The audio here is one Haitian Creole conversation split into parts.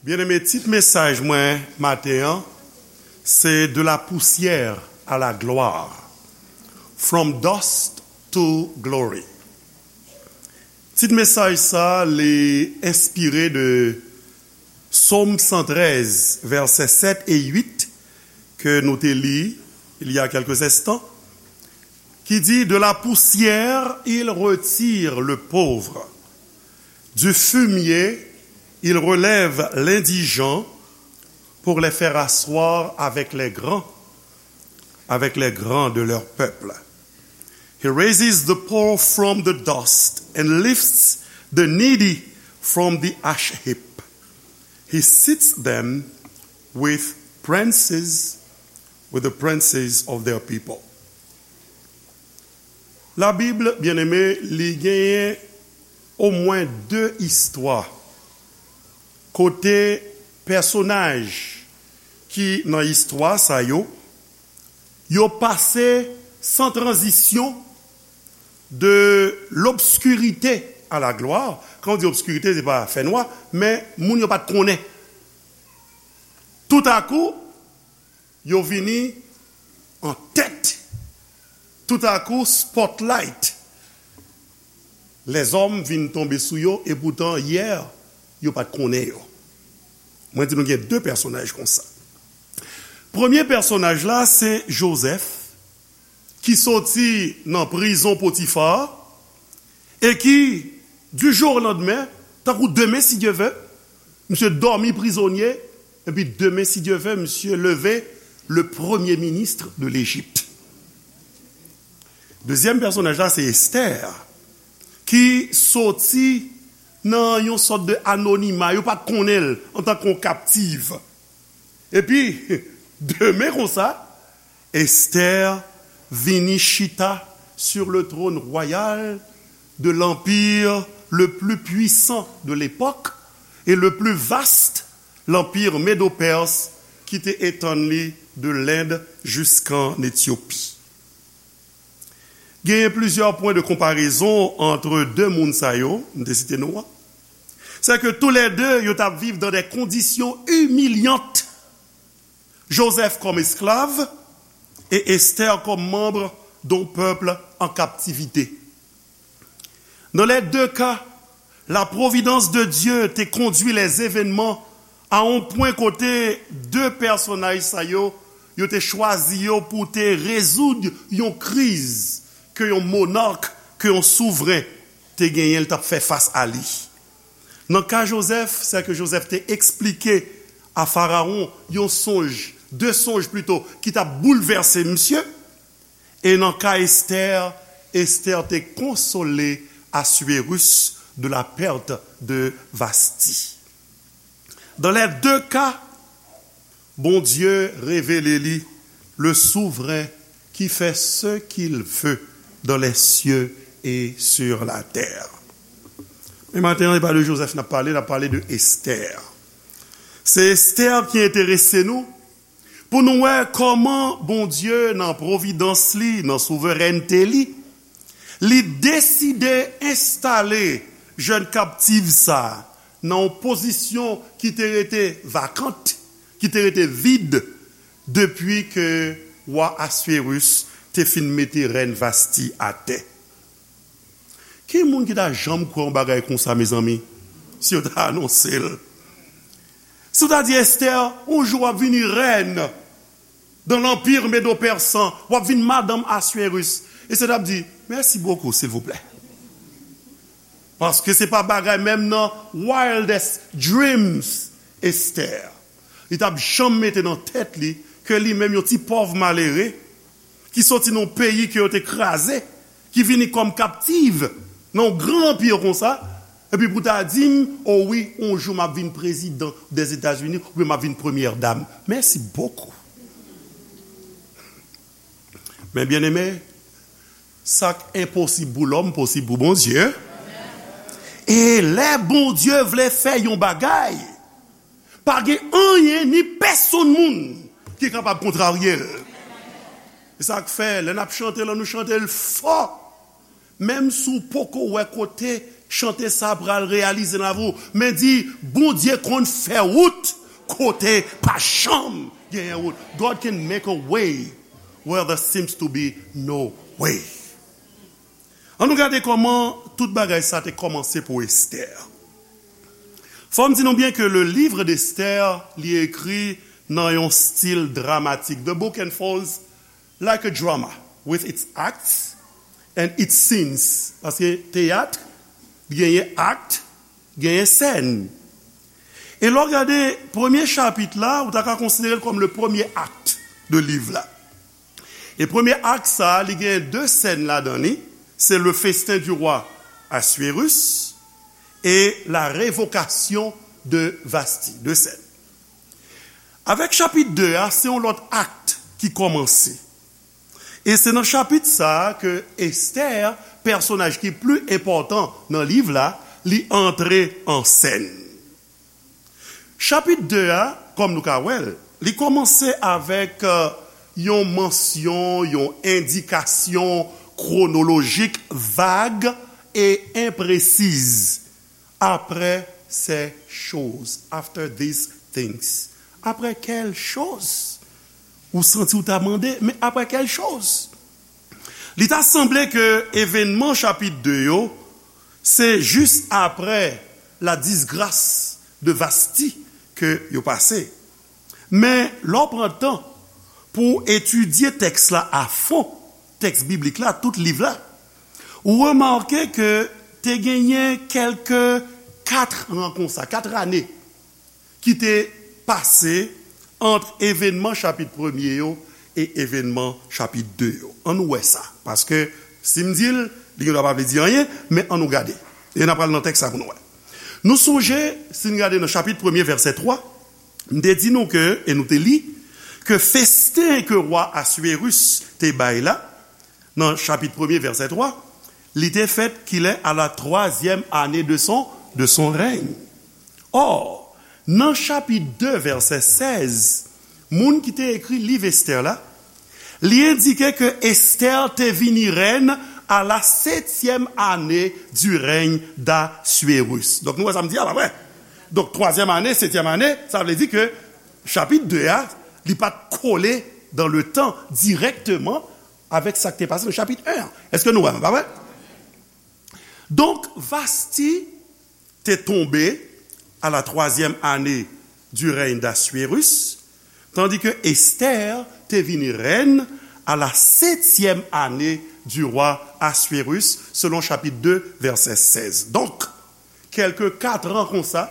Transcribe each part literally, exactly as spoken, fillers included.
Byeneme, tit mesaj mwen maten an, se De la poussière à la gloire, From Dust to Glory. Tit mesaj sa, li enspire de Sòm san trèz, vèsè sèt e uit, ke nou te li il y a quelques instants, qui dit, De la poussière, il retire le pauvre. Du fumier, il relève l'indigent pour les faire asseoir avec les grands, avec les grands de leur peuple. He raises the poor from the dust and lifts the needy from the ash heap. He seats them with princes, with the princes of their people. La Bible, byeneme, li genyen omwen de istwa kote pèsonaj ki nan istwa sa yo, yo pase san tranzisyon de l'obscurité à la gloire. Kan w di obskirite, se pa fènwa, men moun yo pa t konnen. Toutakou, yo vini an tèt. Toutakou, spotlight. Lèzòm vin tonbe sou yo, epoutan, yè, yo pa t konnen yo. Mwen di nou gen de pèsonaj konsa. Premye pèsonaj la, se Jozèf, ki soti nan prizon Potifa, e ki, du jour au lendemain, tankou demen, si Dye vle, misye dòmi prizonye, epi demen, si Dye vle, misye leve, le premier ministre de l'Égypte. Dezyèm pèsonaj la, se Esther, ki soti nan yon sòt de anonima, yo pa t konnen l antanke yon kaptiv. Epi, demen konsa, Esther vini chita sur le trône royal de l'empire le plus puissant de l'époque et le plus vaste, l'empire médo-perse, ki te etann li de Lend jiskan Etyopi. Genyen plizyè pwen de konparezon ant de moun sa yo, m te site non an. Se ke toulède, yo t ap viv dans des conditions humiliantes. Joseph comme esclave et Esther comme membre d'un peuple en captivité. Dans les deux cas, la providence de Dieu te conduit les événements à un point kote de pèsonaj sa yo, yo te chwazi yo pou te rezoud yon kriz ke yon monark, ke yon souvren te genyen, l t ap fè fas a li. Nan ka Jozèf, se ke Jozèf te eksplike a Farawon yon sonj, de sonj plito, ki t ap boulvèse misye. E nan ka Esther, Esther te konsole Assuérus de la perte de Vasti. Dans les deux cas, Bondye revele li, le souvren ki fè ce qu'il veut dans les cieux et sur la terre. Men maten an, se pa de Jozèf n ap pale, n ap pale de Esther. Se Esther ki enterese nou, pou nou wè kòman Bondye, nan pwovidans li, nan souverènte li, li deside enstale jèn kaptiv sa a nan yon pozisyon ki te rete vakant, ki te rete vid, depi ke wa Assuérus te fin mete rèn Vasti atè. Ki moun ki ta janm kwè yon bagay konsa, mezanmi, si yo ta anonse l? Si w ta di Esther, yon jou w ap vini rèn dans l'empire médo-persan, w ap vin madanm Assuérus. Esther t ap di, mèsi bokou, silvouplè. Paske se pa bagay menm nan wildest dreams, Esther. Li t ap janm mete nan tèt li ke li menm yon ti pòv malere, ki soti nan yon peyi ke yo te kraze, ki vini kòm kaptiv nan yon gran anpi konsa, epi pou ta di m, o wi, yon jou m ap vin prezidan dèzetazini, oubyen m ap vin premyè dam. Mèsi bokou. Men byeneme, sa k enposib pou lòm, posib pou Bondye. E lè Bondye vle fè yon bagay, pa gen anyen ni pèsonn moun ki kapab kontrarye l. Se sa k fè, lè n ap chante l, ann nou chante l fò. Menm si w poko wè kote Chante sa pral reyalize nan lavi w. Men di, Bondye konn fè wout kote pa janm genyen wout. God can make a way where there seems to be no way. Ann nou gade kòman tout bagay sa te kòmanse pou Esther. Fò m di nou byen ke le livre d'Esther, li ekri nan yon stil dramatik. The book unfolds like a drama, with its acts and its scenes. Paske teyat, genyen akt, genyen sèn. E lè w gade premye chapit la, ou ta ka konsidere l kòm le premye akt de liv la. E premye akt sa, li gen de sèn ladan li. Se le festin du roi Assuérus et la révocation de Vasti. De sèn. Avèk chapit de a, se yon lòt akt ki kòmanse. E se nan chapit sa a ke Esther, pèsonaj ki pli enpòtan nan liv la, li antre an sèn. Chapit de a, kòm nou ka wè l, li kòmanse avèk, euh, yon mansyon, yon endikasyon kwonolojik vag e enpresiz. Après ces choses, after these things. Après quelles choses? Ou santi w ta mande, men après quelles choses? Li ta sanble ke evènman chapit de yo, se jis apre la disgras de Vasti ke yo pase. Men, lè w pran tan pou w etidye tèks la a fon, tèks biblik la, tout liv la, ou remake ke te genyen kèlke kat an konsa, kat ane ki te pase ant evènman chapit premye yo e evènman chapit de yo. Ann nou wè sa, paske si m di l, li gendwa pa vle di anyen, men ann nou gade. E n ap pral nan tèks la pou nou wè. Nou sonje, si n gade nan chapit premye, vèsè twa, m te di nou ke, e nou te li, ke festen ke wa Assuérus te bay la, nan chapit premye, vèsè twa, li te fèt kilè? À la troisième année de son, de son règne. Or, nan chapit de, vèsè sèz, moun ki te ekri liv Esther la, li endike ke Esther te vini rèn à la septième année du règne d'Assuérus. Donk, nou wè sa m di a, pa vre? Donk, twazyèm ane, setyèm ane, sa vle di ke chapit de a, li pa t kole dans le temps directement avèk sa k te pase nan chapit en an. Èske nou wè m, pa vre? Donk, Vasti te tonbe à la troisième année du règne d'Assuérus, tandis que Esther te vini rèn à la septième année du roi Assuérus, selon chapitre deux, verset seize. Donk, kèlke kat an konsa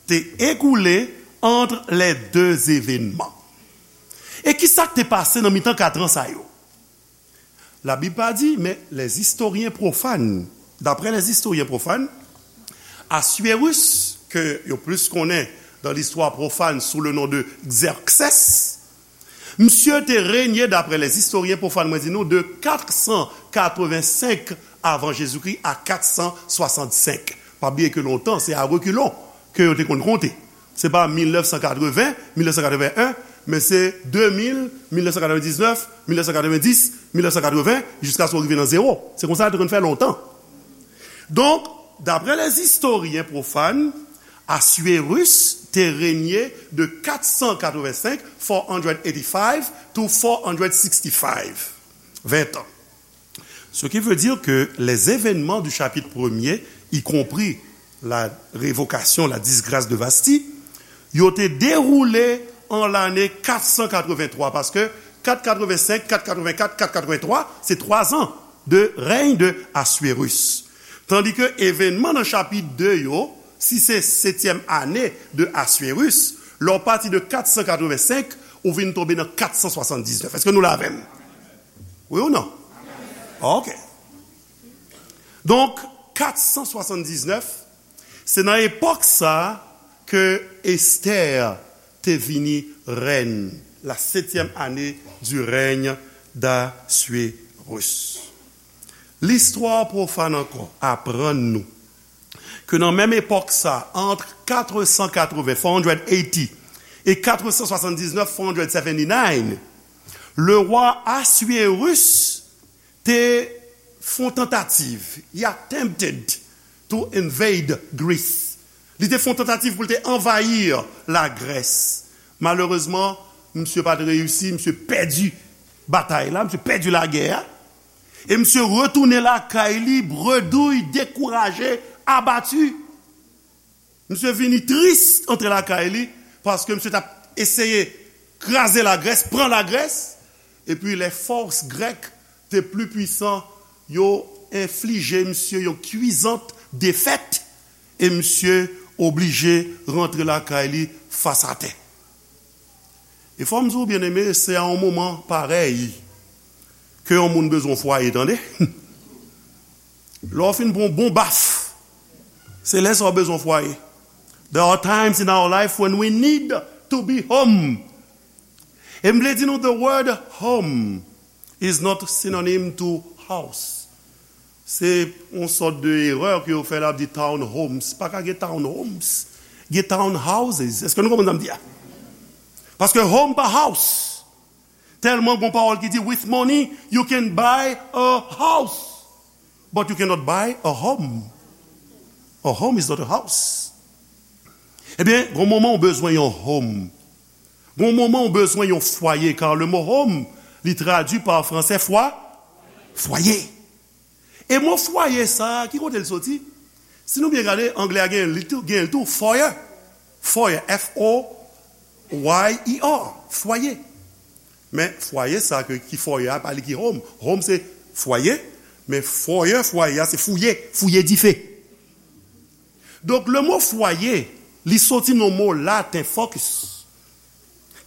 te ekoule ant lè de evènman. E ki sa k te pase nan mitan kat an sa yo? Labib pa di, men les historiens profanes, d'après les historiens profanes, Assuérus, ke yo plis konnen dans l'histoire profane sous le nom de Xerxès, misye te renye, d'après les historiens profanes, mwen di nou, de kat san katrevensenk avan Jezikri a kat san swasannsenk. Pa bliye ke lontan, se a rekilon ke yo te konn konte. Se pa mil nèf san katreven, mil nèf san katreven en, men se de mil, mil nèf san katrevendiznèf, mil nèf san katrevendis, mil nèf san katreven, jiskaske w rive nan zewo. Se konsa yo te konn fè lontan. Donk, d'après les historiens profanes, Assuérus te renye de kat san katrevensenk, four hundred eighty-five, to four hundred sixty-five. Ven tan. Ce qui veut dire que les événements du chapitre premier, y compris la révocation, la disgrâce de Vasti, yo te dewoule an lane kat san katrevenntwa, paske kat katrevensenk, kat katrevenkat, kat katrevenntwa, se twa zan de règne de Assuérus. Tandis que événement nan chapit de yo, si se setyèm ane de Assuérus, lè w pati de kat san katrevensenk, ou vin tonbe nan kat san swasanndiznèf. Èske nou la avè m? Wi ou non? Ok. Donk, kat san swasanndiznèf, se nan epòk sa a ke Esther te vini rèn, la septième année du règne d'Assuérus. Listwa pwofàn ankò aprann nou ke nan menm epòk sa, ant kat san katreven, four hundred eighty, e kat san swasanndiznèf, four hundred seventy-nine, le roi Assuérus te fè yon tantativ, he attempted to invade Greece. Li te fè yon tantativ pou l te anvayi Lagrès. Malerezman, misye pa t reyisi, misye pèdi batay la, misye pèdi lagè a. E misye retounen lakay li, bredouy, dekouraje, abati. Misye vini tris antre lakay li, paske misye t ap eseye kraze Lagrès, pran Lagrès, epi lè fòs grèk te pli pwisan, yo enflije misye yon kwizant defèt, e misye oblije rantre lakay li fas atè. E fò m di w, byeneme, se a yon moman parèy ke yon moun bezwen fwaye, tande. Lè w fin pran yon bon baf, se lè sa w bezwen fwaye. There are times in our life when we need to be home. E m vle di nou, the word home is not synonym to house. Se yon sòt de erè ke yo fè la, ap di townhomes. Pa ka gen townhomes. Gen townhouses. Èske nou konprann sa m di a? Paske home pa house. Tèlman gon pawòl ki di, with money, you can buy a house, but you cannot buy a home. A home is not a house. Ebyen, gon moman ou bezwen yon home. Gon moman ou bezwen yon fwaye, car le mot home, li tradui pa fransè fwa, fwaye. E mo fwaye sa a, ki kote l soti? Si nou byen gade, anglè a gen li tou, gen l tou, foyer. Foyer, F O Y E R, fwaye. Men fwaye sa a ke, ki foyer a, pa li ki home. Home se fwaye, men foyer, fwaye a se fouye, fouye dife. Donk, le mo fwaye, li soti nan mo laten focus,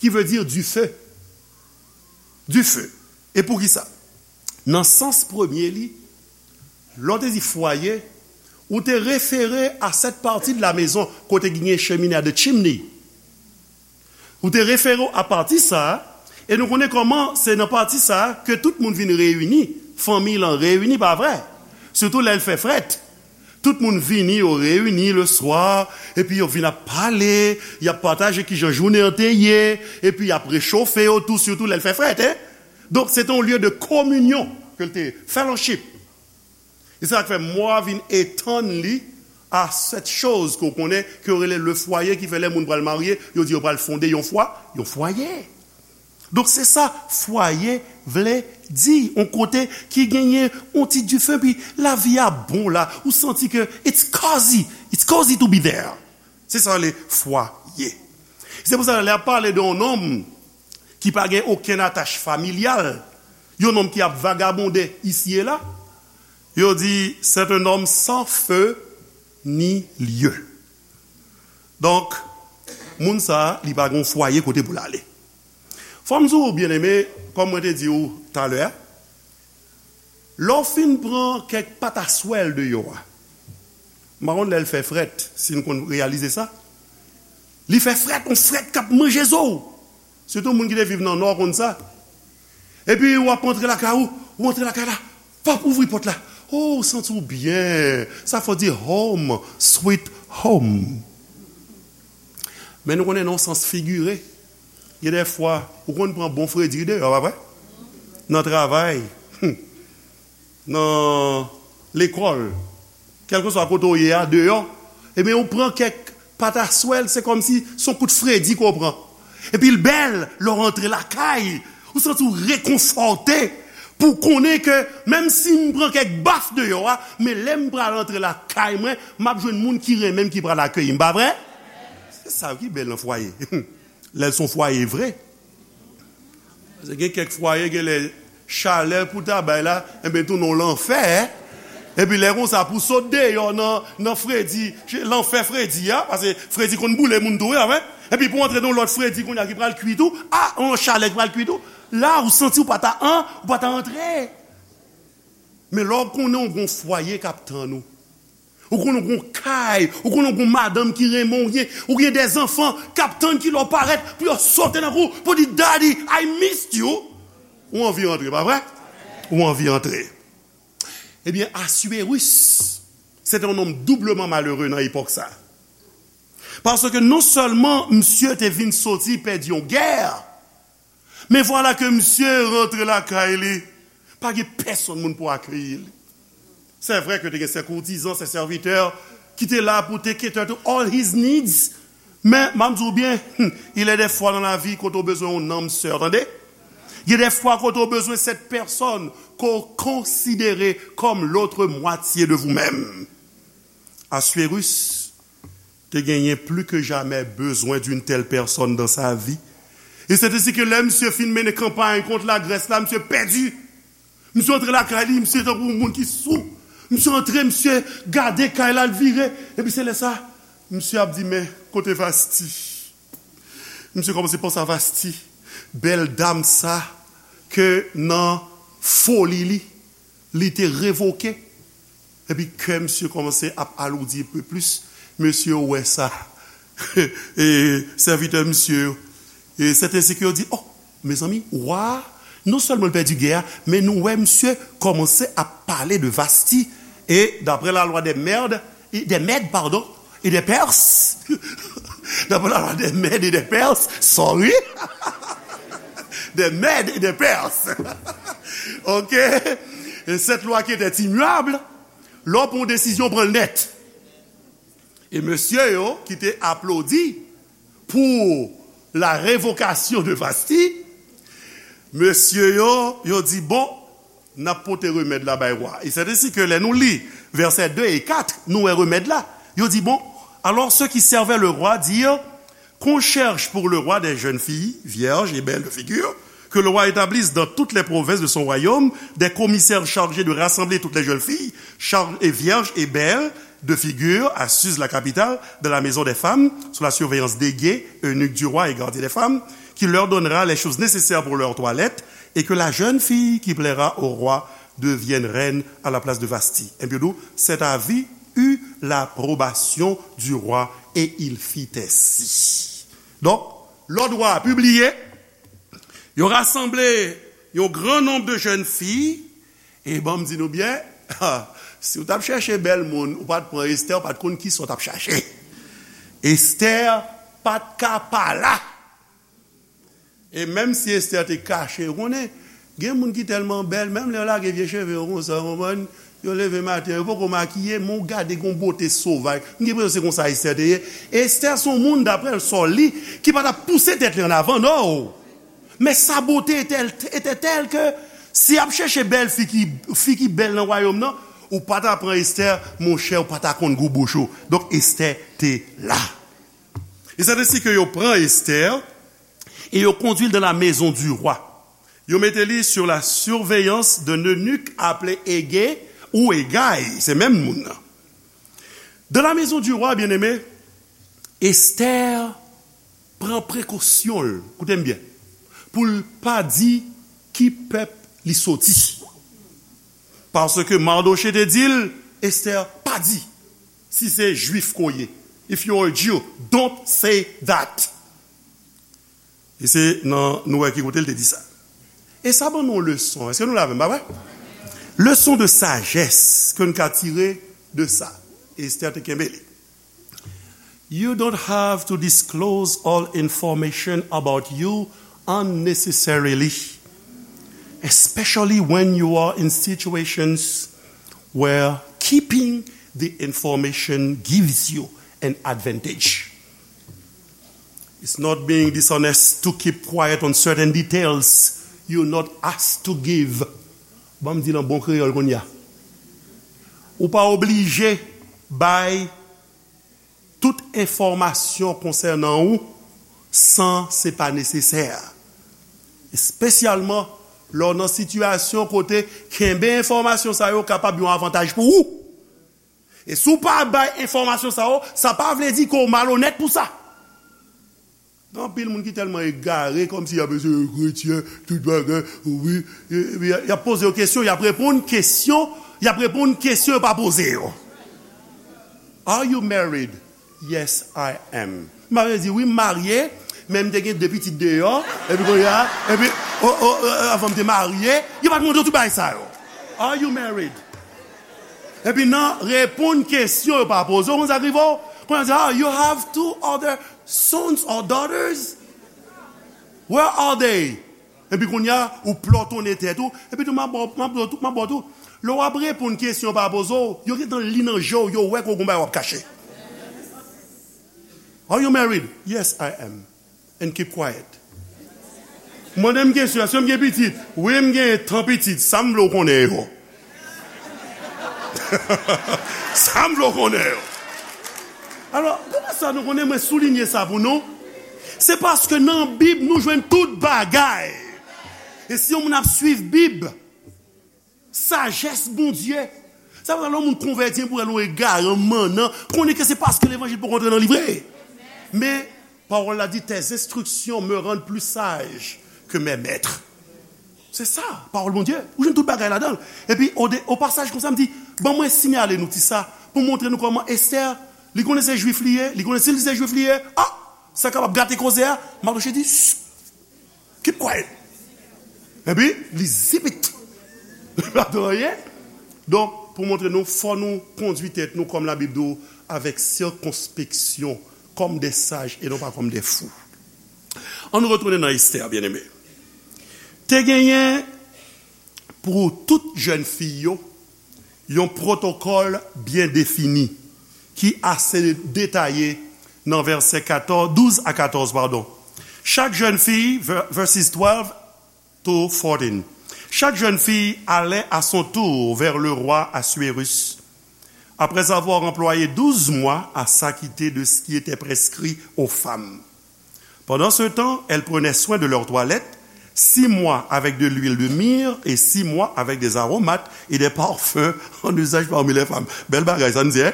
ki vle di dife. Dife. E poukisa? Nan sans premye li, lè w te di fwaye, ou te refere a cette partie de la maison kote ki gen chemine a, the chimney. Ou te refere w a pati sa a, e nou konnen kòman se nan pati sa a ke tout moun vin reyini, fanmi lan reyini, pa vre? Sitou lè l fè frèt. Tout moun vini, yo reyini le swa, epi yo vin ap pale, y ap pataje kijan jounen an te ye, epi y ap rechofe yo tou, sitou lè l fè frèt, en. Donk, se te yon lye de kominyon ke l te ye, fellowship. E se sa k fè mo a vin etann li a cette chose ke w konnen, ke yo rele le foyer, ki fè lè moun pral marye, yo di yo pral fonde yon fwa, yon fwaye. Donk, se sa fwaye vle di, yon kote ki genyen yon ti dife, pi lavi a bon la, ou santi ke it's cozy, it's cozy to be there. Se sa le fwaye. Se pou sa, lè y ap pale de yon nonm ki pa gen okenn atach familyal, yon nonm ki ap vagabonde isi e la, yo di, c'est un homme sans feu ni lieu. Donk, moun sa a, li pa gen yon fwaye kote pou l ale. Fò m di w, byeneme, kòm mwen te di w talè a, lè w fin pran kèk pataswèl deyò a, m pa konn lè l fè frèt, si n konn reyalize sa. Li fè frèt, yon frèt k ap manje zo w. Sitou moun ki te viv nan Nò konn sa. Epi w ap antre lakay ou, ou antre lakay la, pap, ouvri pòt la. O, ou santi w byen. Sa fò di home, sweet home. Men nou konnen nan yon sans figire, gen de fwa, ou konn pran bon fredi deyò, pa vre? Nan travay, nan lekòl, kèlkeswa kote w ye a, deyò, ebyen, ou pran kèk pataswèl, se kòmsi se yon kout fredi ke w pran. Epi l bèl, lè w rantre lakay, ou santi w rekonfòte, pou w konnen ke menm si m pran kèk baf deyò a, men lè m pral rantre lakay mwen, m ap jwenn moun ki renmen m ki pral akeyi m, pa vre? Se sa ki bèl nan fwaye. Lè l se yon fwaye vre. Paske gen kèk fwaye, gen lè chalè pou ta bay la, enben, tounen w lanfè. Epi lè konsa, pou sot deyò nan, nan fredi, lanfè fredi a, paske fredi konn boule moun tou, wi, pa vre? Epi pou antre nan lòt fredi kounye a ki pral kui tou, a, yon chalè ki pral kui tou, la, ou santi w pa ta an, ou pa ta antre. Men lè w konnen w gon fwaye k ap tann ou, ou konnen w gon kay, ou konnen w gon madanm ki renmen w, ou gen, ou gen de zanfan k ap tann ki lè w parèt pou yo sote nan kou, pou di, "Daddy, I missed you." Ou anvi rantre, pa vre? Ou anvi rantre. Ebyen, Assuérus, se te yon nonm doubleman malere nan epòk sa. Paske non sèlman misye te vin soti pèdi yon gè, men vwala ke misye rantre lakay li, pa gen pèsonn moun pou akeyi li. Se vre ke te gen se koutizan, se sèvitè ki te la pou te cater to all his needs. Men, m ap di w byen, il y a des fois dans la vie kote w bezwen yon nanm sè, tande? Il y a des fois kote w bezwen cette personne ke w konsidere comme l'autre moitié de vous-même. Assuérus te genyen plus que jamais besoin d'une telle personne dans sa vie. E se te si ke lè misye fin mennen kanpay kont Lagrès la, misye pèdi. Misye antre lakay li, misye tankou yon moun ki sou. Misye antre, misye gade kay la, l vire. Epi se lè sa, misye ap di, "Men, kote Vasti?" Misye kòmanse panse a Vasti, bèl dam sa ke nan foli li, li te revoke. Epi kè misye kòmanse ap aloudi enpe plis. Mesye yo wè sa. E sèvitè misye yo. E sèten se ke yo di, "Oh, mezanmi, wa a, non sèlman l pèdi gè a, men nou wè misye kòmanse ap pale de Vasti." E daprè la lwa dè mèd, e dè mèd, padon, e dè pès, daprè la lwa dè mèd e dè pès, sorry, dè mèd e dè pès. Ok? E cette loi qui était immuable, lè w pran yon desizyon, pran l nèt. E mesye yo ki te aplodi pou la revocation de Vasti, mesye yo, yo di, "Bon, n ap pote remèd la bay wa." E se ensi ke lè nou li vèsè de e kat, nou wè remèd la. Yo di, "Bon, alors ceux qui servaient le roi dirent qu'on cherche pour le roi des jeunes filles, vierges et belles de figure, que le roi établisse dans toutes les provinces de son royaume des commissaires chargés de rassembler toutes les jeunes filles, char- et vierges et belles de figure à Suse, la capitale, dans la maison des femmes, sous la surveillance d'Hégée, eunuque du roi et gardien des femmes, qui leur donnera les choses nécessaires pour leur toilette, et que la jeune fille qui plaira au roi devienne reine à la place de Vasti." Enpi yo di w, "Cet avis eut l'approbation du roi, et il fit ainsi." Donk, lòd wa a pibliye, yo rasanble yon gran nonb de jèn fi, e ban m di nou byen, si w t ap chèche bèl moun, ou pa t pran Estè, ou pa t konn kisa w t ap chache. Estè pa t ka pa la. E menm si Estè te kache, ou konnen, gen moun ki tèlman bèl, menm lè yo lage vye cheve yo konsa, ou konprann, yo leve maten, yo poko makiye, men w gade gon bote sovaj. M gen enpresyon se konsa Estè te ye. Estè se yon moun, daprè l, sa w li, ki pa t ap pouse tèt li an avan, non. Men sa bote etè, etè tèl ke si y ap chèche bèl fi ki, fi ki bèl nan wayòm nan, ou pa ta pran Estè, monchè, ou pa ta konn gou bouch ou. Donk, Estè te la. E se te si ke yo pran Estè, et yo conduit dans la maison du roi. Yo mete li sur la surveillance d'un eunuque appelé Hégée ou Hégaï, se menm moun nan. Dans la maison du roi, bien-aimé, Esther pran prekosyon l, koute m byen, pou l pa di ki pèp li soti. Paske Mardochée te di l, Esther, pa di si se Jwif ke w ye. If you are a Jew, don't say that. E se nan, nou wè ki kote l te di sa. E sa ban nou yon leson. Èske nou la avè m, pa vre? Leson de sajès ke n ka tire de sa. Esther te kenbe li. You don't have to disclose all information about you unnecessarily, especially when you are in situations where keeping the information gives you an advantage. It's not being dishonest to keep quiet on certain details you're not asked to give. Ban m di l an bon kreyòl kounye a. Ou pa oblije bay tout enfòmasyon konsènan ou san se pa nesesè. Espesyalman lè w nan sitiyasyon kote kenbe enfòmasyon sa yo kapab yon avantaj pou ou. E si w pa bay enfòmasyon sa yo, sa pa vle di ke w malonèt pou sa. Gen anpil moun ki tèlman egare, kòmsi y ap eseye kretyen, tout bagay, wi, e, e, y ap poze yo kesyon, y ap reponn kesyon, y ap reponn kesyon yo pa poze yo. Are you married? Yes, I am. M ap di, wi, m marye, men m te gen de pitit deyò, epi kounye a, epi, o, o, o, avan m te marye, yo pa t mande w tout bagay sa yo. Are you married? Epi nan reponn kesyon yo pa poze w, konn sa k rive w? Kounye a di, "Ah, you have two other sons or daughters? Where are they?" Epi kounye a, ou plòtonnen tèt ou, epi tou, m ap ba w, m ap ba w tou, m ap ba w tou. Lè w ap reponn kesyon yo pa poze w, yo gentan li nan je w, yo wè ke w gen yon bagay w ap kache. Are you married? Yes, I am. And keep quiet. Mande m kesyon, èske m gen pitit? Wi, m gen tan pitit. Sa m vle w konnen yo? Sa m vle w konnen yo? Alò, poukisa nou konnen mwen soulinye sa pou nou? Se paske nan Bib, nou jwenn tout bagay. E si yon moun ap swiv Bib, sajès Bondye. Sa vle di, lè yon moun konvèti pou el yon egare, yon mannan, konnen ke se paske levanjil poko antre nan li vre. Men, pawòl la di, tes instructions me rendent plus sage que mes maîtres. Se sa, pawòl Bondye. Ou jwenn tout bagay ladan l. Epi, o, de, o pasaj konsa, m di, ban mwen siyale nou ti sa, pou montre nou kòman Estè, li konnen se jwif li ye, li konnen si li se jwif li ye, a, sa kapab gate koze a, Mardoshe di, keep quiet. Epi, li zip it. Li pa di anyen. Donk, pou montre nou, fò nou kondui tèt nou kòm Labib di w, avèk sikonspeksyon, comme des sages et non pas comme des fous. Ann retounen nan Estè, byeneme. Te genyen pou tout jèn fi yo, yon pwotokòl byen defini ki ase detaye nan vèsè katòz, douz a katòz, padon. Chaque jeune fille, ver- verses twelve to fourteen. Chaque jeune fille allait à son tour vers le roi Assuérus, après avoir employé douze mois à s'acquitter de ce qui était prescrit aux femmes. Pendant ce temps, elles prenaient soin de leur toilette, six mois avec de l'huile de myrrhe et six mois avec des aromates et des parfums en usage parmi les femmes. Bèl bagay, sa n di, hein?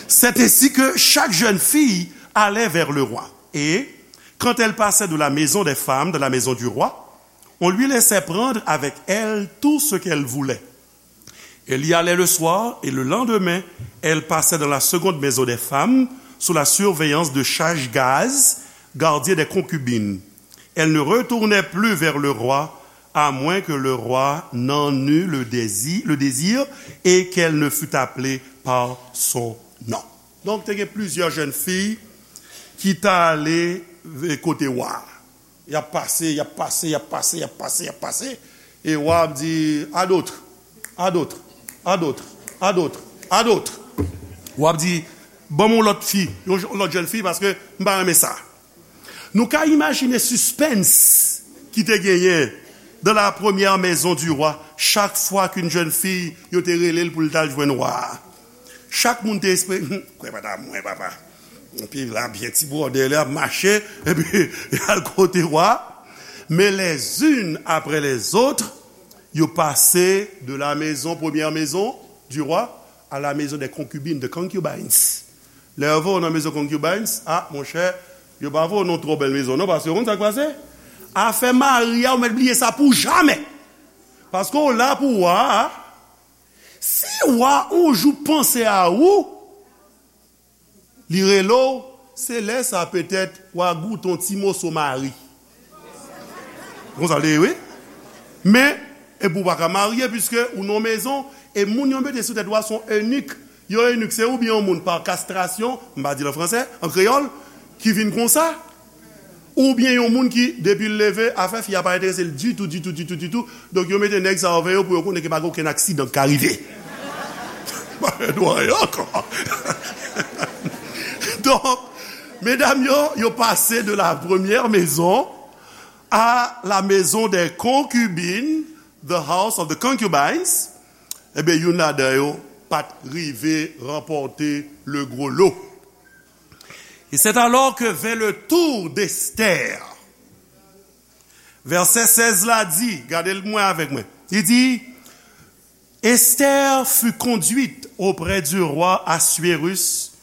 C'est ainsi que chaque jeune fille allait vers le roi. Et, quand elle passait de la maison des femmes dans la maison du roi, on lui laissait prendre avec elle tout ce qu'elle voulait. Elle y allait le soir et le lendemain, elle passait dans la seconde maison des femmes sous la surveillance de Shaashgaz, gardien des concubines. Elle ne retournait plus vers le roi, à moins que le roi n'en eût le désir, le désir et qu'elle ne fût appelée par son nom. Donk, te gen plizyè jèn fi ki t ale kote wa a. Y ap pase, y ap pase, y ap pase, y ap pase, y ap pase. E wa ap di, à d'autres, à d'autres, à d'autres, à d'autres, à d'autres. Wa ap di, ban m yon lòt fi, yon j- lòt jèn fi, paske m pa renmen sa. Nou ka imajine sispens ki te genyen dans la première maison du roi, chak fwa ke yon jèn fi, yo te rele l pou l t al jwenn wa a. Chak moun te espere, hmm, kwè pa ta mwen, papa. Epi la, byen ti bwòdè, li ap mache, epi y al kote wa. Mais les unes après les autres, yo pase de la maison, première maison du roi, à la maison des concubines, de concubines. Lè yo voye w nan maison concubines, a, monchè, yo pa voye w nan twò bèl maison, non, paske ou konn sa k pase? Afè mari a, ou mèt bliye sa pou jamè. Paske w la pou wa a. Si wa yon jou panse a ou, li rele w, se lè sa petèt wa goute yon ti moso mari. Konsa l te ye, wi. Men, epi w pa ka marye, piske ou nan mezon, e moun yo mete sou tèt wa se yon enik. Yon enik, se oubyen yon moun pa kastrasyon, m pa di l an fransè, an kreyòl, ki vin konsa, oubyen yon moun ki, depi l leve, afè fi a pa enterese l ditou, ditou, ditou, ditou. Donk, yo mete nèg sa yo avè yo pou yo konnen ke pa gen okenn aksidan k ka rive. Pa fè dwa yo ankò. Donk, medam yo, yo pase de la première maison à la maison des concubines, the house of the concubines. Ebyen, youn ladan yo pa t rive ranpòte le gros lot. Et c'est alors que vint le tour d'Esther. Vèsè sèz la di, gade l mwen avèk mwen. Li di, Esther fut conduite auprès du roi Assuérus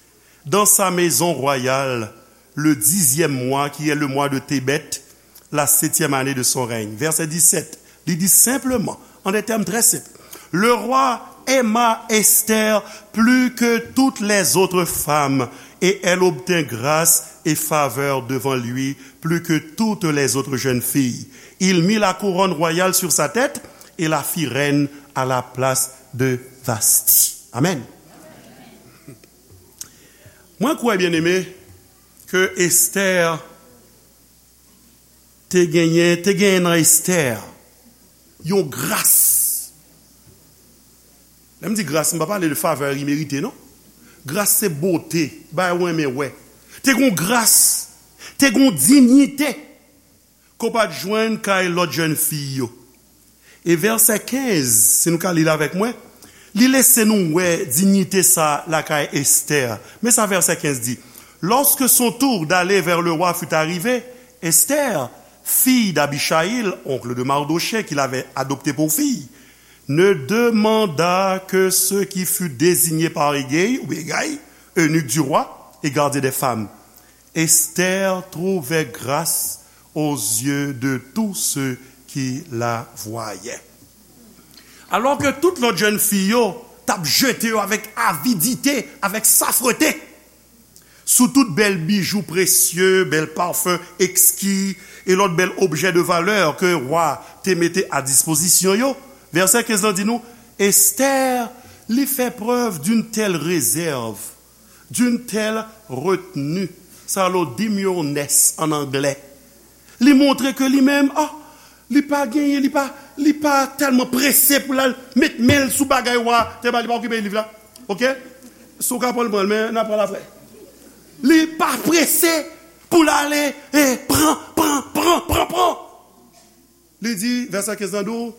dans sa maison royale le dixième mois, qui est le mois de Tébeth, la septième année de son règne. Verset dix-sept, li di senpleman, en des termes très simples, le roi aima Esther plus que toutes les autres femmes, et elle obtint grâce et faveur devant lui plus que toutes les autres jeunes filles. Il mit la couronne royale sur sa tête et la fit reine à la place de Vasti. Amen. Mwen kwè, byeneme, ke Esther te genyen, te genyen nan Esther yon gras Lè m di gras, m pa pale de favè imerite, non. Gras se bote, bagay ou renmen wè. Te gon gras, te gon diyite ke w pa t jwenn kay lòt jèn fi yo. E vèsè kenz, si nou ka li l avèk mwen, li lese nou wè diyite sa lakay Estè. Men sa vèsè kenz di, Lorsque son tour d'aller vers le roi fut arrivé, Esther, fille d'Abichaïl, oncle de Mardochée, qui l'avait adoptée pour fille, ne demanda que ce qui fut désigné par Hegai, ou Hegai, eunuque du roi et gardien des femmes. Esther trouvait grâce aux yeux de tous ceux qui la voyaient. Alò ke tout lòt jèn fi yo t ap jete yo avèk avidite, avèk safrete, sou tout bèl bijou presye, bèl pafen ekski e lòt bèl objè de valè ke wa te mete a dispozisyon yo. Vèsè kenz lan di nou, Esther, li fè prèv d'une telle réserve, d'une telle retenue. Sa rele w demure-ness an anglè. Li montre ke li menm, ah, li pa genyen, li pa, li pa tèlman prese pou l al met men l sou bagay wa te ba li, pa okipe liv la. Oke? Si w ka pran l, pran l, men n a pran l apre. Li pa prese pou l ale, eh, pran, pran, pran, pran, pran. Li di, vèsè kenz lan di w,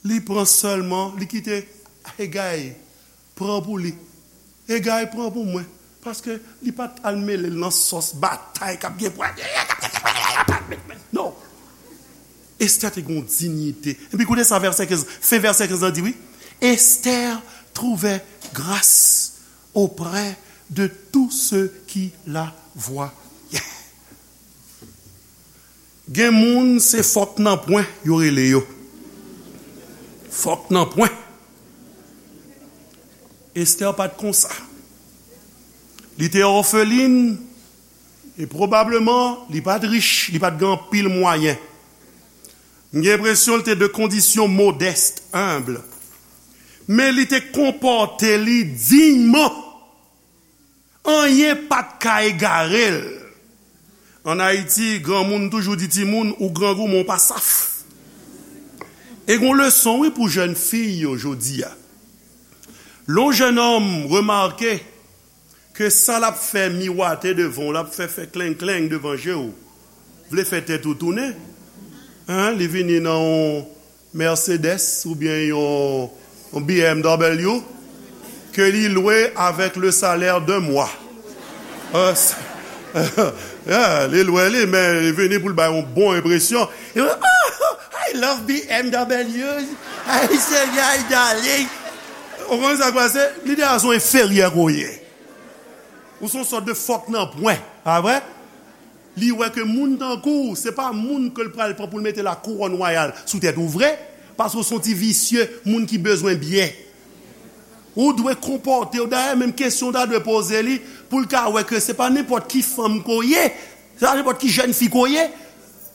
li pran sèlman, li kite Hegai pran pou li. Hegai pran pou mwen. Paske li pa t al mele l nan sòs batay k ap gen pwa. Non. Esther te gen yon diyite. Epi koute sa vèsè kenz, fen vèsè kenz lan di wi. Esther trouvait grâce auprès de tous ceux qui la voyaient. Gen moun se fòk nan pwen yo rele yo. Fòk nan pwen. Esther pa t konsa. Li te òfelin e pwobableman li pa t rich, li pa t gen anpil mwayen. M gen enpresyon li te de kondisyon modèst, enb. Men li te konpòte li diyman. Anyen pa t ka egare l. Ann Ayiti, granmoun toujou di timoun, ou grangou, men w pa saf. E gon leson, wi, pou jèn fi yo jodi a. Lè yon jèn òm remake ke sa l ap fè miwate devan w, l ap fè fè kleng kleng devan je w, vle fè tèt ou tounen, en, li vini nan yon Mercedes oubyen yon, yon B M W ke li lwe avèk le salaire d'un mois. Euh, yeah, li lwe li, men li vini pou l bay yon bon enpresyon. Li di, "Oh, I love B M W. Ay, Senyè, ay, darling." Ou konn sa k pase? Li deja se yon enferyè ke w ye. Ou se yon sòt de fòk nan pwen, pa vre? Li wè ke moun tankou w, se pa moun ke l pral pran pou l mete la kouwòn wayal sou tèt ou vre, paske w se yon ti visye, moun ki bezwen byen. Ou dwe konpòte w, dayè, menm kesyon w ta dwe poze li, pou l ka wè ke se pa nenpòt ki fanm ke w ye, se pa nenpòt ki jèn fi ke w ye.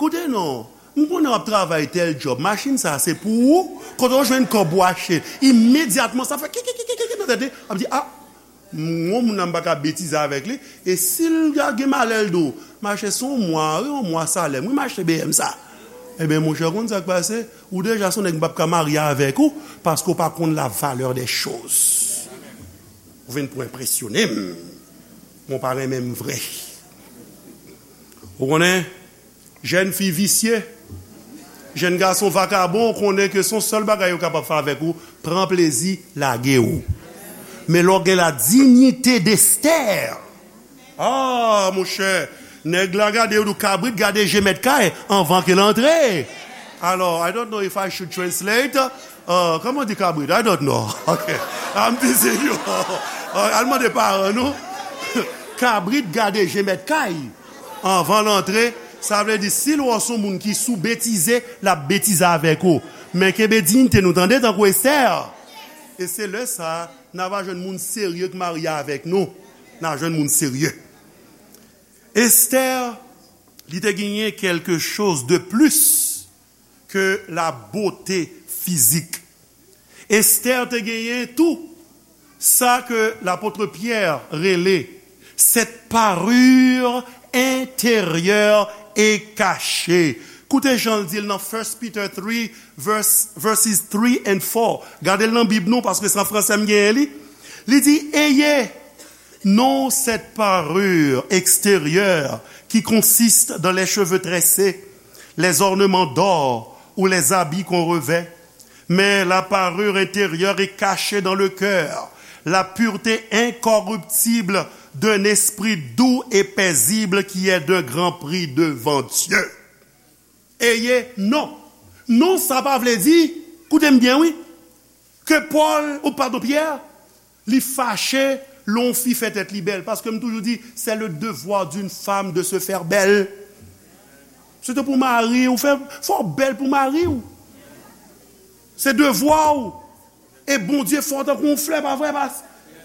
Koute non, m konnen w ap travay tèl djòb, machin sa a se pou ou, kote w jwenn kòb ou achte l, imedyatman sa fè kikikikiki nan tèt li, ap di, a, M, yon moun nan m pa ka betize avèk li. E si l gen malè l di w, "M achte se yon mwa, wi, yon mwa salè m, wi, m achte B M sa." Ebyen, monchè, w konn sa k pase? Ou deja se yon nèg m p ap ka marye avèk ou, paske w pa konn la valeur des choses. Ou vin pou enpresyone m. Mwen pa renmen m vre. Ou konnen? Jèn fi visye, jèn gason vakabon, konnen ke se yon sèl bagay yo kapab fè avèk ou, pran plezi, lage w. Men lè w gen la dignité d'Esther, ah, monchè, nèg la gade w, di w kabrit gade je mèt kay anvan ke l antre. Alò, I don't know if I should translate. Uh, kòman di kabrit? I don't know. Ok. I'm teasing you. Uh, al mande paran nou. Kabrit gade je mèt kay anvan l antre, sa vle di si l wè w se yon moun ki sou betize, l ap betize avèk ou. Men kenbe diyite nou tande tankou Esther. E se lè sa a, n a va jwenn moun serye k marye avèk nou. N a jwenn moun serye. Esther, li te genyen quelque chose de plus que la beauté physique. Esther te genyen tou sa ke lapot Pyè rele cette parure intérieure et cachée. Koute jan l di l nan First Peter three, verse, verses three and four. Gade l nan Bib nou, paske se an fransè m genyen li. Li di, Ayez non cette parure extérieure qui consiste dans les cheveux tressés, les ornements d'or ou les habits qu'on revêt, mais la parure intérieure est cachée dans le cœur, la pureté incorruptible d'un esprit doux et paisible qui est d'un grand prix devant Dieu. Ayez non. Non, sa pa vle di, koute m byen, wi, ke Pòl, ou padon, Pyè, li fache lè yon fi fè tèt li bèl. Paske m toujou di, c'est le devoir d'une femme de se faire belle. Se te pou mari w, fè, fò w bèl pou mari w. Se devwa w. E Bondye fè w tankou yon flè, pa vre, pas?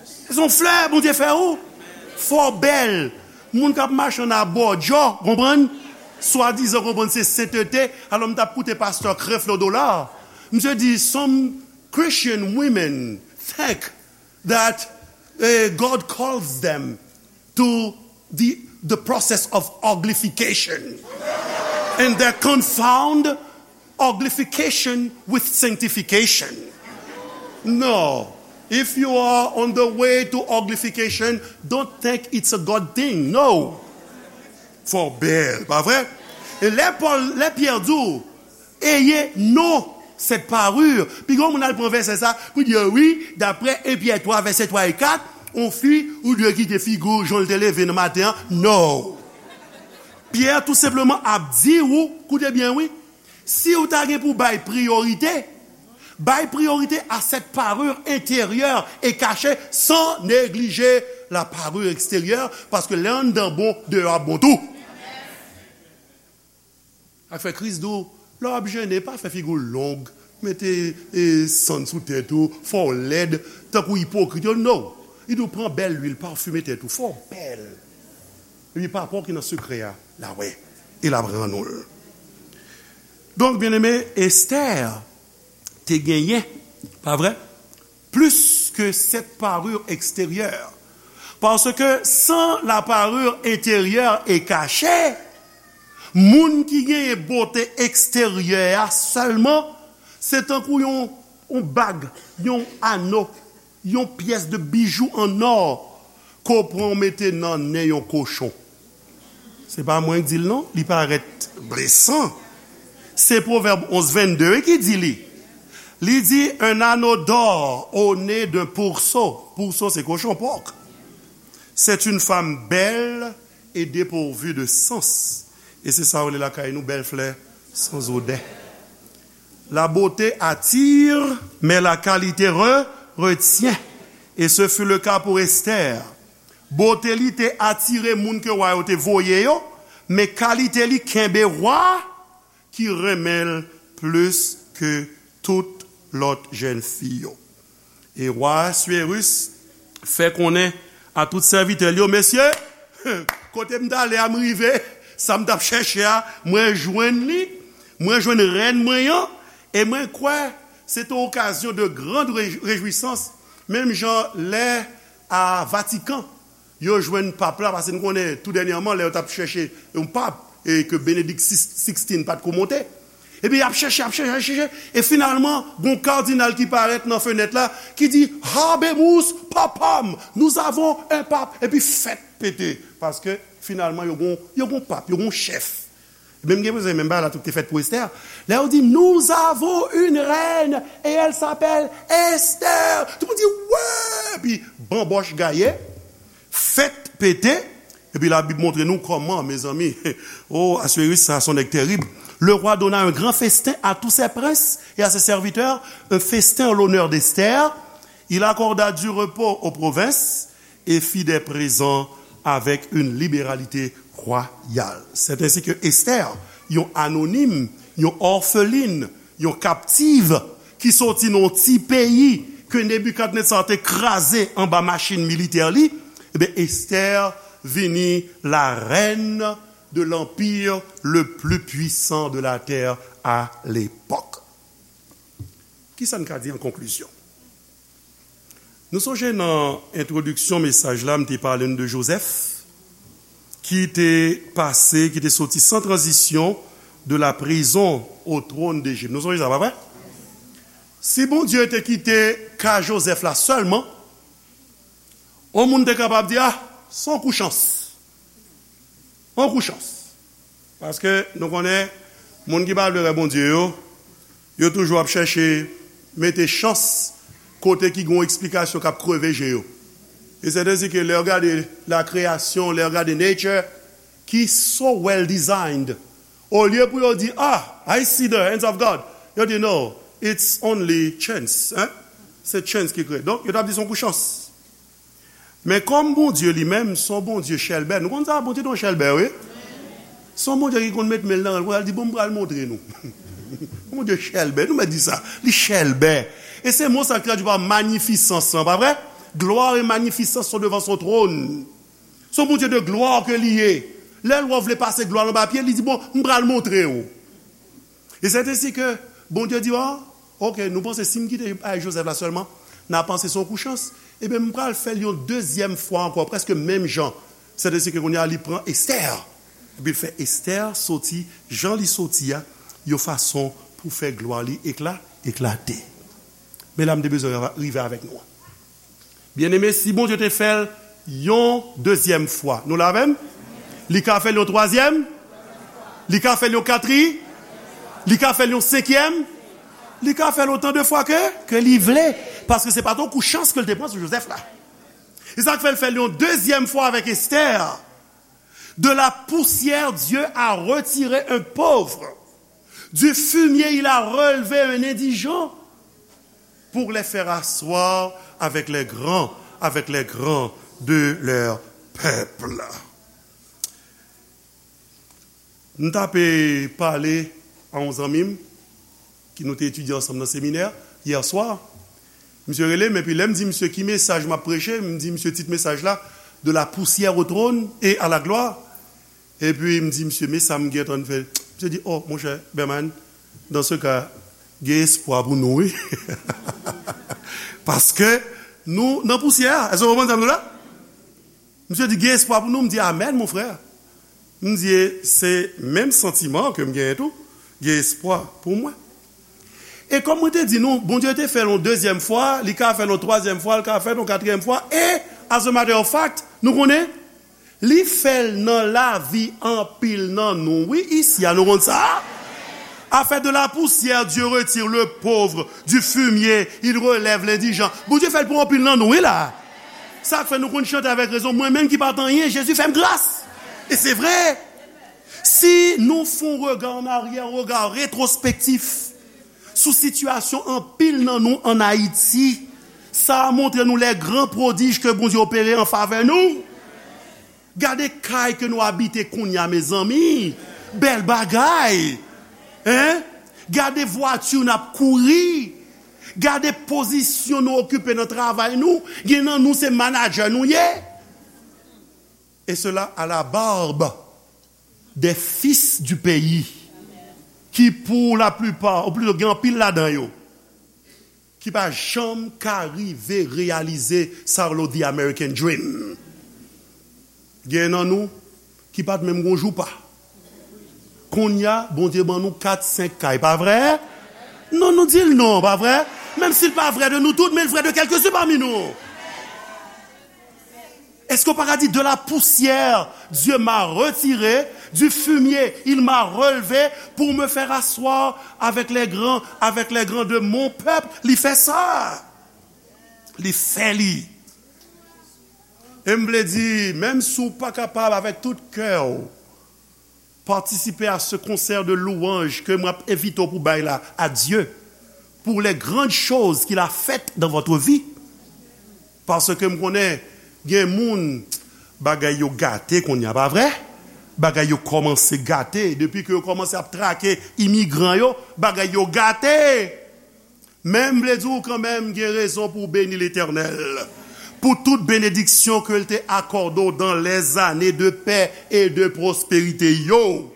Se yon flè Bondye fè ou. Fò w bèl. Moun k ap mache ann abòdjò, konprann? Swadizan, konprann, se sentete. Alò, m t ap koute pastè Creflo Dollar. Misye di, some Christian women think that, eh, God calls them to the, the process of uglification. And they confound uglification with sanctification. No. If you are on the way to uglification, don't think it's a God thing. No. Fò w bèl, pa vre? E lè Pòl, lè Pyè di w, Ayez non cette parure. Piga yon moun al pran vèsè sa pou di, wi, daprè en Pyè twa, vèsè twa e kat, yon fi, ou dwe kite figi w jan l te leve nan maten an. No. Pyè tou senpleman ap di w, koute byen, wi, si w ta gen pou bay priyorite, bay priyorite à cette parure intérieure et cachée, sans négliger la parure extérieure, paske lè anndan bon, deyò ap bon tou. Ak fè Kris di w, lè w ap jene, pa fè figi w long, mete, e, sann sou tèt ou, fè w lèd, tankou ipokrit yo, no. Li di w pran bèl lwil, pafime tèt ou, fè w bèl. Epi Papa w ki nan sekrè a, l a wè, e l ap rann ou l. Donk, byeneme, Estè te genyen, pa vre? Plus que cette parure extérieure. Parce que sans la parure intérieure et cachée, moun ki genyen bote eksteryè a sèlman, se tankou yon, yon bag, yon ano, yon pyès de bijou an nò ke w pran w mete nan nen yon kochon. Se pa mwen k di l non, li parèt blesan. Se Pwovèb onz vennde wi ki di li. Li di, un anneau d'or au nez d'un pourceau. Pourceau, se kochon, pòk. C'est une femme belle et dépourvue de sens. E se sa yo rele lakay nou, bèl flè, sans odeur. La beauté attire, mais la qualité re-, retient. Et ce fut le cas pour Esther. Bote li te atire moun ke wa yo te voye yo, men kalite li kenbe wa ki renmen l plis ke tout lòt jèn fi yo. E wa Asuerus fè konnen a tout sèvitè l yo, mesye, kote m t ale a, m rive, sa m t ap chèche a, mwen jwenn li, mwen jwenn rèn mwen an, e mwen kwè se te okazyon de grande réj-, réjouissance, menm jan lè a Vatikan, yo jwenn pap la, paske nou konnen tou dènyèman, lè yo t ap chèche yon pap, e ke Benedict sixteen pa t ko monte. Epi y ap chèche, y ap chèche, y ap chèche, e finalman, gon kadinal ki parèt nan fenèt la, ki di, Habemus papam, nous avons un pape, epi fèt pete, paske finalman, yo gon, yo gon pap, yo gon chèf. Menm gen bezwen, menm bagay la tou te fèt pou Esther. Lè yo di, nous avons une reine et elle s'appelle Esther. Tout moun di, wè! Epi, banbòch gaye, fèt pete. Epi Labib montre nou kòman, mezanmi. Oh, Asuerus, sa, se yon nèg terib. Le roi donna un grand festin à tous ses princes et à ses serviteurs, un festin en l'honneur d'Esther. Il accorda du repos aux provinces et fit des présents avec une libéralité royale. C'est ainsi que Esther, yon anonim, yon òfelin, yon kaptiv, ki soti nan yon ti peyi ke Nebikadnetza te kraze anba machin militè li, ebyen, Esther vini la reine de l'empire le plus puissant de la terre à l'époque. Kisa n ka di an konklizyon? Nou sonje nan entwodiksyon mesaj la, m te pale n de Jozèf, ki te pase, ki te soti san tranzisyon de la prison au trône d'Égypte. Nou sonje sa, pa vre? Si Bondye te kite ka Jozèf la sèlman, yon moun te kapab di, ah, se yon kou chans. Yon kou chans. Paske nou konnen, moun ki pa vle wè Bondye yo, yo toujou ap chèche mete chans kote ki gen yon eksplikasyon k ap kreve je yo. E sètensike lè w gade la création, lè w gade nature, ki so well designed, olye pou yo di, ah, I see the hands of God, yo di, no, it's only chance. Hein? Se chance ki kreye. Donk, yo t ap di se yon kou chans. Men kòm Bondye li menm, se yon Bondye chèlbè. Nou konn sa, Bondye te yon chèlbè, wi. Se yon Bondye ki konn met men l nan rèl pou l di, bon, m pral montre nou. Bondye chèlbè, nou mèt di sa. Li chèlbè. E se mo sa k tradui pa magnificence lan, pa vre? Gloire et magnificence sont devant son trône. Se yon Bondye de glwa ke li ye. Lè l wè w vle pase glwa l anba pye, li di, bon, m pral montre w. E sètensike Bondye di, ah, ok, nou panse si m kite bagay Jozèf la sèlman, n a panse se yon kou chans. Ebyen, m pral fè l yon dezyèm fwa ankò, prèske menm jan. Sètensike kounye a, li pran Estè. Epi l fè Estè soti, jan li soti a, yon fason pou fè glwa li ekla, eklate. Men la, m te bezwen rive avèk nou. Byeneme, si Bondye te fè l yon dezyèm fwa, nou la avè m? Li ka fè l yon twazyèm? Li ka fè l yon katri? Li ka fè l yon senkyèm? Li ka fè l otan de fwa ke, ke li vle. Paske se pa t yon kou chans ke l te pran sou Jozèf la. E sa k fè l fè l yon dezyèm fwa avèk Estè. De la poussière, Dieu a retiré un pauvre. Du fumier, il a relevé un indigent pour les faire asseoir avec les grands, avec les grands de leur peuple. M t ap pale a yon zanmi m ki nou te etidye ansanm nan seminè yè swa. Misye rele m, epi lè m di misye ki mesaj m ap preche, m di misye tit mesaj la, De la poussière au trône et à la gloire. Epi m di misye, men sa m gentan fè. Misye di, oh, monchè, Berman, dans ce cas, gen espwa pou nou, wi. Paske nou nan pousyè a. Èske w konprann sa m di w la? Misye di, gen espwa pou nou. M di, amèn, mon frè. M di, se menm santiman ke m genyen tou. Gen espwa pou mwen. E kòm mwen te di nou, Bondye te fè l yon dezyèm fwa, li ka fè l yon twazyèm fwa, li ka fè l yon katriyèm fwa, e, as a matter of fact, nou konnen, li fè l nan lavi anpil nan nou. Wi, isi a, nou konn sa? A fait de la poussière, Dieu retire le pauvre, du fumier, il relève l'indigent. Bondye fè l pou anpil nan nou, wi la. Sa k fè nou konn chante avèk rezon, mwen menm ki pa t anyen, Jezi fè m gras. E se vre. Si nou fè yon rega an aryè, yon rega retwospektif sou sitiyasyon anpil nan nou ann Ayiti, sa a montre nou les grands prodiges ke Bondye opere an favè nou. Gade kay ke nou abite kounye a, mezanmi. Bèl bagay. Hein? Gade vwati n ap kouri. Gade pozisyon nou okipe nan travay nou. Gen nan nou se manadjè nou ye. Et cela à la barbe des fils du pays, ki pour la plupart, ou plito gen anpil ladan yo, ki pa janm ka rive reyalize sa yo rele the American dream. Gen nan nou ki pa t menm gon joupa. Kounye a, Bondye ban nou kat, senk kay, pa vre? Non, nou di l non, pa vre? Menm si l pa vrè de nou tout, men l vrè de kèlkesou pami nou. Èske w pa ka di, de la poussière, Dieu m'a retiré, du fumier, il m'a relevé, pour me faire asseoir avec les grands, avec les grands de mon peuple? Li fè sa. Li fè li. E m vle di, menm si w pa kapab avèk tout kè w, participer à ce concert de louanges ke mwen ap envite w pou bay la à Dieu pour les grandes choses qu'il a faites dans votre vie. Paske m konnen gen moun, bagay yo gate kounye a, pa vre? Bagay yo kòmanse gate. Depi ke yo kòmanse ap trake imigran yo, bagay yo gate. Men m vle di w kanmenm, gen rezon pou w beni Letènèl pou tout benediksyon ke l te akòde w dans les années de paix et de prospérité yo.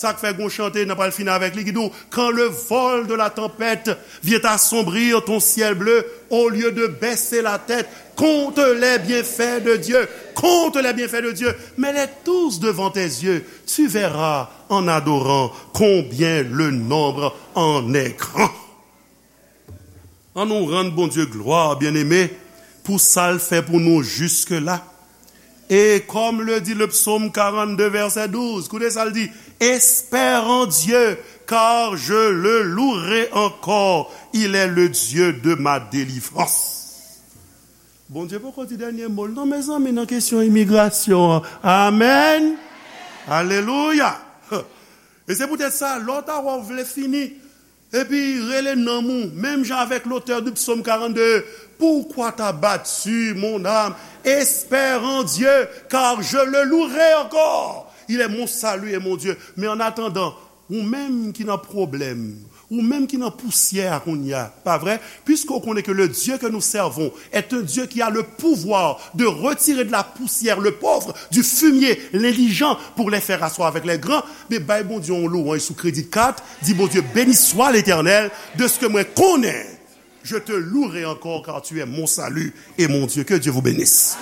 Sa k fè gon chante, n a pral fini avèk li, ki di w, quand le vol de la tempête vient assombrir ton ciel bleu, au lieu de baisser la tête, compte les bienfaits de Dieu. Compte les bienfaits de Dieu. Mets-les tous devant tes yeux. Tu verras en adorant combien le nombre en est grand. An nou rann Bondye glwa, byeneme, pou sa l fè pou nou jiske la. Et comme le dit le psaume quarante-deux, verset douze, koute sa l di, espère en Dieu, car je le louerai encore, il est le Dieu de ma délivrance. Bondye poko di dènye mo l non, mezanmi, nan kesyon imigrasyon an. Amèn. Alelouya. E se poutèt sa, lè w ta wè w vle fini, epi rele nanm ou, menm jan avèk l'auteur du psaume quarante-deux, pourquoi t'as battu mon âme? Espère en Dieu, car je le louerai encore. Il est mon salut et mon Dieu. Men an atandan, ou menm ki nan pwoblèm, ou menm ki nan pousyè a kounye a, pa vre? Puisque on connaît que le Dieu que nous servons est un Dieu qui a le pouvoir de retirer de la poussière le pauvre, du fumier l'indigent, pour les faire asseoir avec les grands, men bay Bondye yon louanj sou kredi kat, di, Bondye, béni soit l'Éternel, de ce que mwen konnen, je te louerai encore, car tu es mon salut et mon Dieu. Que Dieu vous bénisse.